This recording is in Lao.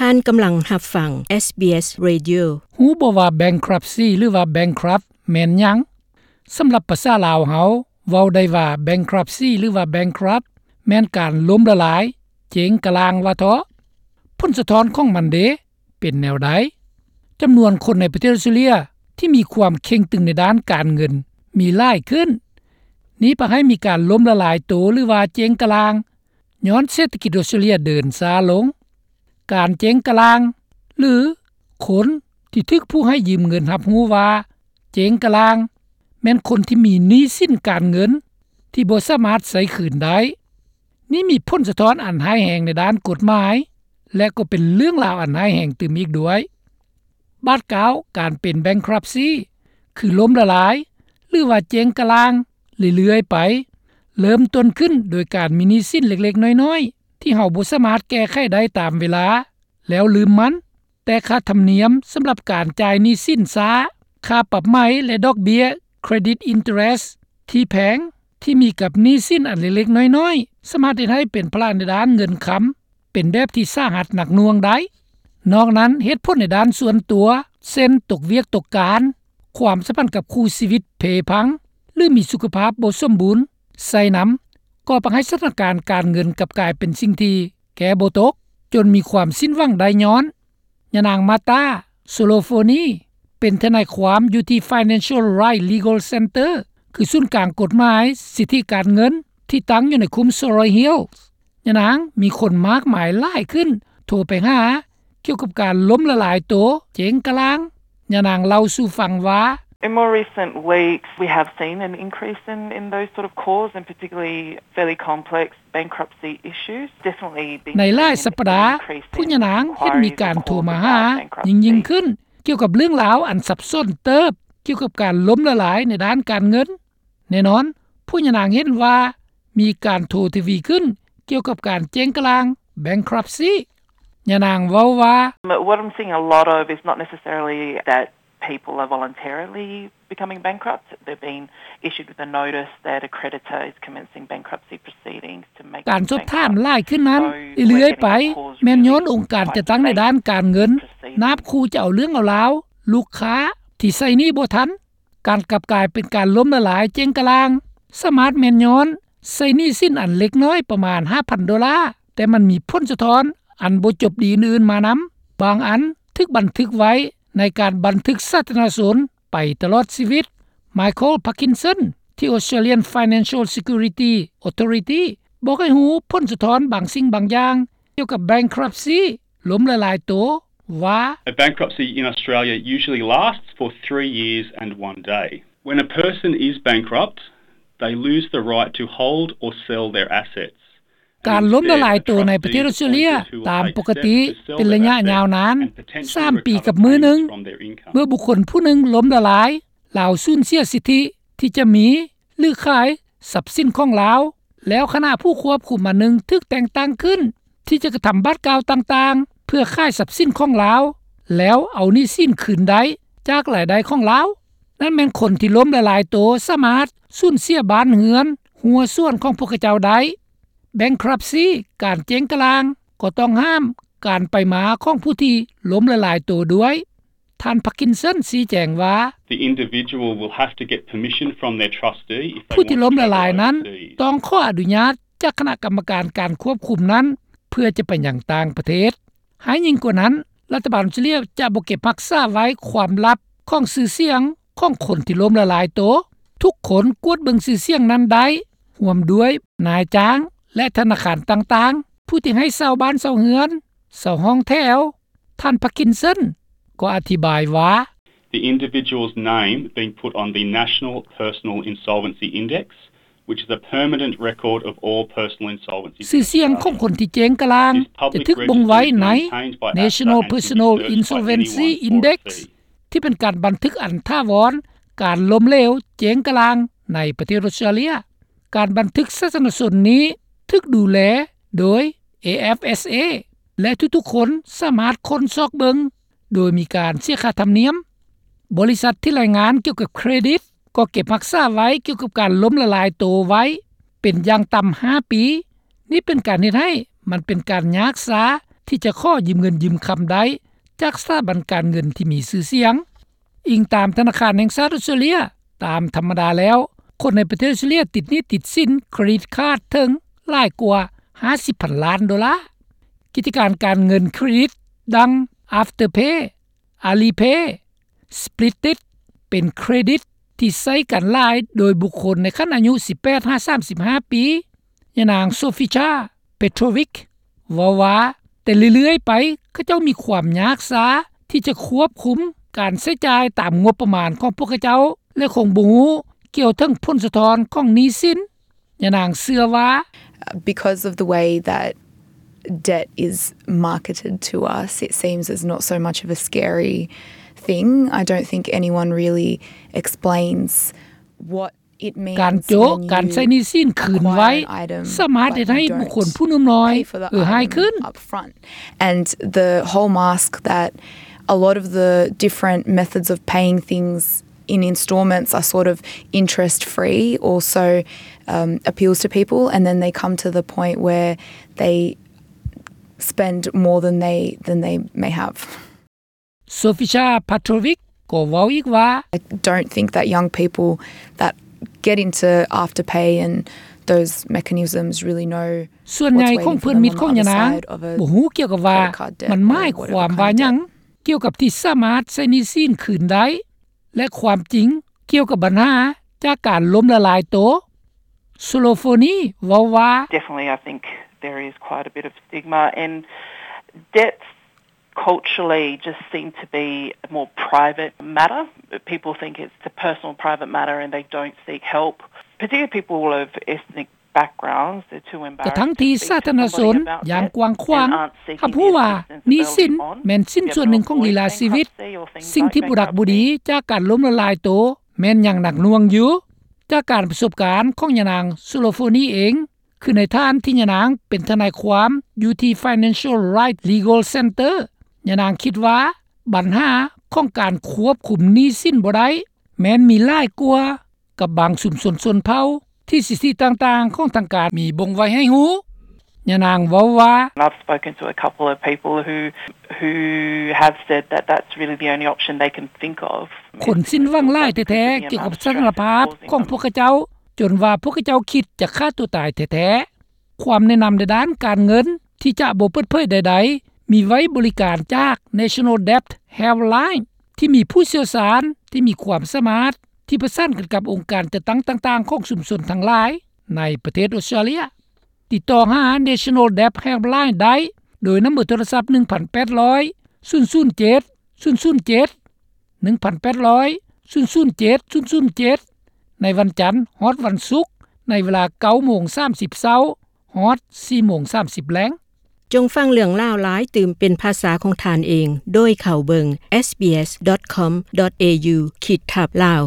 ທ່ານກຳລັງຮັບຟັງ SBS Radio. ຮູ້ບໍ່ວ່າ bankruptcy ຫຼືວ່າ bankrupt ແມ່ນຫຍັງ? ສຳລັບພາສາລາວເຮົາ ເວົ້າໄດ້ວ່າ bankruptcy ຫຼືວ່າ bankrupt ແມ່ນການລົ້ມລະລາຍ, ເຈັງກະລ່າງວ່າເທາະ. ຜົນສະທ້ອນຂອງມັນເດ ເປັນແນວໃດ? ຈຳນວນຄົນໃນປະເທດອອສເຕຣເລັຽທີ່ມີຄວາມເຄັ່ງຕຶງໃນດ້ານການເງິນມີຫຼາຍຂຶ້ນ. ນີ້ພາໃຫ້ມີການລົ້ມລະລາຍໂຕ ຫຼືວ່າເຈັງກະລ່າງ ຍ້ອນເສດຖະກິດອອສເຕຣເລັຽເດີນຊ້າລົງ. ການເຈັງກະລ່າງ ຫຼື ຄົນທີ່ຖືກຜູ້ໃຫ້ຢືມເງິນຮັບຮູ້ວ່າເຈັງກະລ່າງ ແມ່ນຄົນທີ່ມີໜີ້ສິນການເງິນທີ່ບໍ່ສາມາດໃຊ້ຄືນໄດ້. ນີ້ມີຜົນສະທ້ອນອັນຮ້າຍແຮງໃນດ້ານກົດໝາຍ ແລະ ກໍເປັນເລື່ອງລາວອັນຮ້າຍແຮງຕື່ມອີກດ້ວຍ. ບາດກ້າວການເປັນ bankruptcy ຄືລົ້ມລະລາຍ ຫຼືວ່າເຈັງກະລ່າງເລື້ອຍໆໄປ, ເລີ່ມຕົ້ນຂຶ້ນໂດຍການມີໜີ້ສິນເລັກໆນ້ອຍໆ ທີ່ເຮົາບໍ່ສາມາດແກ້ໄຂໄດ້ຕາມເວລາ ແລ້ວລືມມັນ, ແຕ່ຄ່າທຳນຽມສຳລັບການຈ່າຍໜີ້ສິນຊ້າ, ຄ່າປັບໃໝ ແລະ ດອກເບ້ຍ credit interest ທີ່ແພງ ທີ່ມີກັບໜີ້ສິນອັນເລັກໆນ້ອຍໆ ສາມາດເຮັດໃຫ້ເປັນພາລະໃນດ້ານເງິນຄຳ ເປັນແບບທີ່ສາຫັດໜັກໜ່ວງໄດ້. ນອກນັ້ນ, ເຫດຜົນໃນດ້ານສ່ວນຕົວ ເຊັ່ນ ຕົກວຽກຕົກການ, ຄວາມສຳພັນກັບຄູ່ຊີວິດເພພັງ ຫຼື ມີສຸຂະພາບບໍ່ສົມບູນໃສ່ນຳ, ກໍພາໃຫ້ສະຖານະການການເງິນກັບກາຍເປັນສິ່ງທີ່ແກ້ບໍ່ຕົກ, ຈົນມີຄວາມສິ້ນຫວັງໄດ້ຍ້ອນ. ຍານາງ ມາຕາ ໂຊໂລໂຟນີ ເປັນທະນາຍຄວາມຢູ່ທີ່ Financial Right Legal Centre ຄືສູນກາງກົດໝາຍສິດທິການເງິນ ທີ່ຕັ້ງຢູ່ໃນຄຸ້ມ Surry Hills. ຍານາງມີຄົນມາກມາຍຫຼາຍຂຶ້ນໂທໄປຫາ ກ່ຽວກັບການລົ້ມລະລາຍໂຕ, ເຈັງກະລ່າງ. ຍານາງເລົ່າສູ່ຟັງວ່າ, In more recent weeks, we have seen an increase in, in those sort of calls, and particularly fairly complex bankruptcy issues. Definitely been seeing an increase in inquiries requiring bankruptcy. ໃນຫຼາຍສັບປະດາ, ຜູ້ຍານາງເຫັນມີການໂທມາຫາຍິ່ງໆຂຶ້ນ ກ່ຽວກັບເລື່ອງລາວອັນສັບສົນເຕີບ ກ່ຽວກັບການລົ້ມລະລາຍໃນດ້ານການເງິນ. ແນ່ນອນ, ຜູ້ຍານາງເຫັນວ່າມີການໂທທະວີຂຶ້ນກ່ຽວກັບການເຈັງກະລ່າງ bankruptcy. ຍານາງເວົ້າວ່າ, What I'm seeing a lot of is not necessarily that people are voluntarily becoming bankrupt. They've been issued with a notice that a creditor is commencing bankruptcy proceedings to make them bankrupt. ການສອບຖາມຫຼາຍຂຶ້ນນັ້ນເລື້ອຍໆໄປ ແມ່ນຍ້ອນອົງການຈັດຕັ້ງໃນດ້ານການເງິນ ນາບຂູ່ຈະເອົາເລື່ອງເອົາລາວລູກຄ້າທີ່ໃຊ້ໜີ້ບໍ່ທັນ. ການກັບກາຍເປັນການລົ້ມລະລາຍເຈັງກະລ່າງ ສາມາດແມ່ນຍ້ອນໃຊ້ໜີ້ສິນອັນເລັກນ້ອຍປະມານຫ້າພັນໂດລາ, ແຕ່ມັນມີຜົນສະທ້ອນອັນບໍ່ຈົບດີອື່ນໆມານຳ. ບາງອັນຖືກບັນທຶກໄວ້ໃນການບັນທຶກສາທາລະນະຊົນໄປຕະຫຼອດຊີວິດ. ໄມເຄິນ ພາກກິນສັນ ທີ່ Australian Financial Security Authority ບອກໃຫ້ຮູ້ຜົນສະທ້ອນບາງສິ່ງບາງຢ່າງ ກ່ຽວກັບ bankruptcy ລົ້ມລະລາຍໂຕວ່າ, A bankruptcy in Australia usually lasts for three years and one day. When a person is bankrupt, they lose the right to hold or sell their assets. ການລົ້ມລະລາຍໂຕໃນປະເທດອອສເຕຣເລັຽຕາມປົກກະຕິເປັນໄລຍະຍາວນານ ສາມປີກັບມື້ໜຶ່ງ. ເມື່ອບຸກຄົນຜູ້ໜຶ່ງລົ້ມລະລາຍ, ລາວສູນເສຍສິດທິທີ່ຈະມີ ຫຼື ຂາຍຊັບສິນຂອງລາວ, ແລ້ວຄະນະຜູ້ຄວບຄຸມອັນໜຶ່ງຖືກແຕ່ງຕັ້ງຂຶ້ນ ທີ່ຈະກະທຳບາດກ້າວຕ່າງໆ ເພື່ອຂາຍຊັບສິນຂອງລາວ ແລ້ວເອົາໜີ້ສິນຄືນໄດ້ຈາກລາຍໄດ້ຂອງລາວ. ນັ້ນແມ່ນຄົນທີ່ລົ້ມລະລາຍໂຕສາມາດສູນເສຍບ້ານເຮືອນ, ຮົ້ວສວນຂອງພວກເຂົາເຈົ້າໄດ້. Bankruptcy, ການເຈັງກະລ່າງ ກໍຕ້ອງຫ້າມການໄປມາຂອງຜູ້ທີ່ລົ້ມລະລາຍໂຕດ້ວຍ. ທ່ານ ພາກກິນສັນ ຊີ້ແຈງວ່າ, The individual will have to get permission from their trustee if they want to go overseas. ຜູ້ທີ່ລົ້ມລະລາຍນັ້ນຕ້ອງຂໍອະນຸຍາດຈາກຄະນະກຳມະການການຄວບຄຸມນັ້ນ ເພື່ອຈະໄປຍັງຕ່າງປະເທດ. ຮ້າຍຍິ່ງກວ່ານັ້ນ, ລັດຖະບານອອສເຕຣເລັຽຈະບໍ່ເກັບຮັກສາໄວ້ຄວາມລັບຂອງຊື່ສຽງຂອງຄົນທີ່ລົ້ມລະລາຍໂຕ. ທຸກຄົນກວດເບິ່ງຊື່ສຽງນັ້ນໄດ້, ຮ່ວມດ້ວຍນາຍຈ້າງ ແລະ ທະນາຄານຕ່າງໆ, ຜູ້ທີ່ໃຫ້ເຊົ່າບ້ານເຊົ່າເຮືອນ, ເຊົ່າຫ້ອງແຖວ. ທ່ານ ພາກກິນສັນ ກໍອະທິບາຍວ່າ, The individual's name being put on the National Personal Insolvency Index, which is a permanent record of all personal insolvency in Australia. ຊື່ສຽງຂອງຄົນທີ່ເຈັງກະລ່າງຈະຖືກບົ່ງໄວ້ໃນ National Personal Insolvency Index ທີ່ເປັນການບັນທຶກອັນຖາວອນການລົ້ມເຫຼວເຈັງກະລ່າງໃນປະເທດອອສເຕຣເລັຽ. ການບັນທຶກສາທາລະນະຊົນນີ້ຖືກດູແລໂດຍ AFSA ແລະ ທຸກໆຄົນສາມາດຄົ້ນຊອກເບິ່ງໂດຍມີການເສຍຄ່າທຳນຽມ. ບໍລິສັດທີ່ລາຍງານກ່ຽວກັບເຄຣດິດກໍເກັບຮັກສາໄວ້ກ່ຽວກັບການລົ້ມລະລາຍໂຕໄວ້ເປັນຢ່າງຕ່ຳຫ້າປີ. ນີ້ເປັນການເຮັດໃຫ້ມັນເປັນການຍາກຊ້າ ທີ່ຈະຂໍຢືມເງິນຢືມຄຳໄດ້ຈາກສະຖາບັນການເງິນທີ່ມີຊື່ສຽງ. ອີງຕາມທະນາຄານແຫ່ງຊາດອອສເຕຣເລັຍ, ຕາມທຳມະດາແລ້ວ ຄົນໃນປະເທດອອສເຕຣເລັຍຕິດໜີ້ຕິດສິນເຄຣດິດຄາດເຖິງຫຼາຍກວ່າຫ້າສິບພັນລ້ານໂດລາ. ກິດຈະການການເງິນເຄຣດິດດັ່ງ Afterpay, Alipay, Split'it ເປັນເຄຣດິດທີ່ໃຊ້ກັນຫຼາຍໂດຍບຸກຄົນໃນຂັ້ນອາຍຸສິບແປດຫາສາມສິບຫ້າປີ. ຍານາງ Sofija Petrovic ເວົ້າວ່າ ແຕ່ເລື້ອຍໆໄປ ເຂົາເຈົ້າມີຄວາມຍາກຊ້າທີ່ຈະຄວບຄຸມການໃຊ້ຈ່າຍຕາມງົບປະມານຂອງພວກເຂົາເຈົ້າ ແລະ ຄົງບໍ່ຮູ້ກ່ຽວເຖິງຜົນສະທ້ອນຂອງໜີ້ສິນ. ຍານາງເຊື່ອວ່າ Because of the way that debt is marketed to us, it seems as not so much of a scary thing. I don't think anyone really explains what ການໂຈະ ການໃຊ້ໜີ້ສິນຄືນໄວ ສາມາດເຮັດໃຫ້ບຸກຄົນຜູ້ໜຸ່ມນ້ອຍເອື້ອຍຫາຍຂຶ້ນ. And the whole mask that a lot of the different methods of paying things in installments are sort of interest free also um, appeals to people, and then they come to the point where they spend more than they than they may have. Sofija Petrovic ກໍເວົ້າອີກວ່າ I don't think that young people that get into Afterpay and those mechanisms really know ສ່ວນໃຫຍ່ຂອງເພື່ອນມິດຂອງຍານາງ ບໍ່ຮູ້ກ່ຽວກັບວ່າມັນໝາຍຄວາມວ່າຫຍັງ ກ່ຽວກັບທີ່ສາມາດໃຊ້ໜີ້ສິນຄືນໄດ້ ແລະ ຄວາມຈິງກ່ຽວກັບບັນຫາຈາກການລົ້ມລະລາຍໂຕ. Solofoni ເວົ້າວ່າ Definitely, I think there is quite a bit of stigma and debts culturally just seem to be a more private matter. People think it's a personal private matter and they don't seek help, particularly people of ethnic ກະທັ່ງທີ່ສາທາລະນະຊົນຢ່າງກວ້າງຂວາງຮັບຮູ້ວ່າໜີ້ສິນແມ່ນຊິ້ນສ່ວນໜຶ່ງຂອງລີລາຊີວິດ. ສິ່ງທີ່ບໍ່ດັກບໍ່ດີຈາກການລົ້ມລະລາຍໂຕແມ່ນຍັງໜັກໜ່ວງຢູ່. ຈາກການປະສົບການຂອງຍານາງ Solofoni ເອງ ຄືໃນຖານທີ່ຍານາງເປັນທະນາຍຄວາມຢູ່ທີ່ Financial Rights Legal Center, ຍານາງຄິດວ່າບັນຫາຂອງການຄວບຄຸມໜີ້ສິນບໍ່ໄດ້ ແມ່ນມີຫຼາຍກວ່າກັບບາງຊຸມຊົນຊົນເຜົ່າທີ່ສິດທິຕ່າງໆຂອງທາງການມີບົ່ງໄວ້ໃຫ້ຮູ້. ຍານາງເວົ້າວ່າ I've spoken to a couple of people who who have said that that's really the only option they can think of. ຄົນສິ້ນຫວັງຫຼາຍແທ້ໆ ກ່ຽວກັບສະຖານະພາບຂອງພວກເຂົາເຈົ້າ ຈົນວ່າພວກເຂົາເຈົ້າຄິດຈະຂ້າຕົວຕາຍແທ້ໆ. ຄວາມແນະນຳໃນດ້ານການເງິນທີ່ຈະບໍ່ເປີດເຜີຍໃດໆ ມີໄວ້ບໍລິການຈາກ National Debt Helpline ທີ່ມີຜູ້ຊ່ຽວຊານທີ່ມີຄວາມສາມາດ ທີ່ປະສານກັນກັບອົງການຈັດຕັ້ງຕ່າງໆຂອງຊຸມຊົນທັງຫຼາຍໃນປະເທດອອສເຕຣເລັຍ. ຕິດຕໍ່ຫາ National Debt Helpline ໄດ້ໂດຍນຳເບີໂທລະສັບ ໜຶ່ງພັນແປດຮ້ອຍ ສູນສູນເຈັດ ສູນສູນເຈັດ ໜຶ່ງພັນແປດຮ້ອຍ ສູນສູນເຈັດ ສູນສູນເຈັດ ໃນວັນຈັນຮອດວັນສຸກ ໃນເວລາເກົ້າໂມງສາມສິບເຊົ້າ ຮອດສີ່ໂມງສາມສິບແລງ. ຈົ່ງຟັງເລື່ອງລາວຫຼາຍຕື່ມເປັນພາສາຂອງທ່ານເອງ ໂດຍເຂົ້າເບິ່ງ sbs.com.au/lao.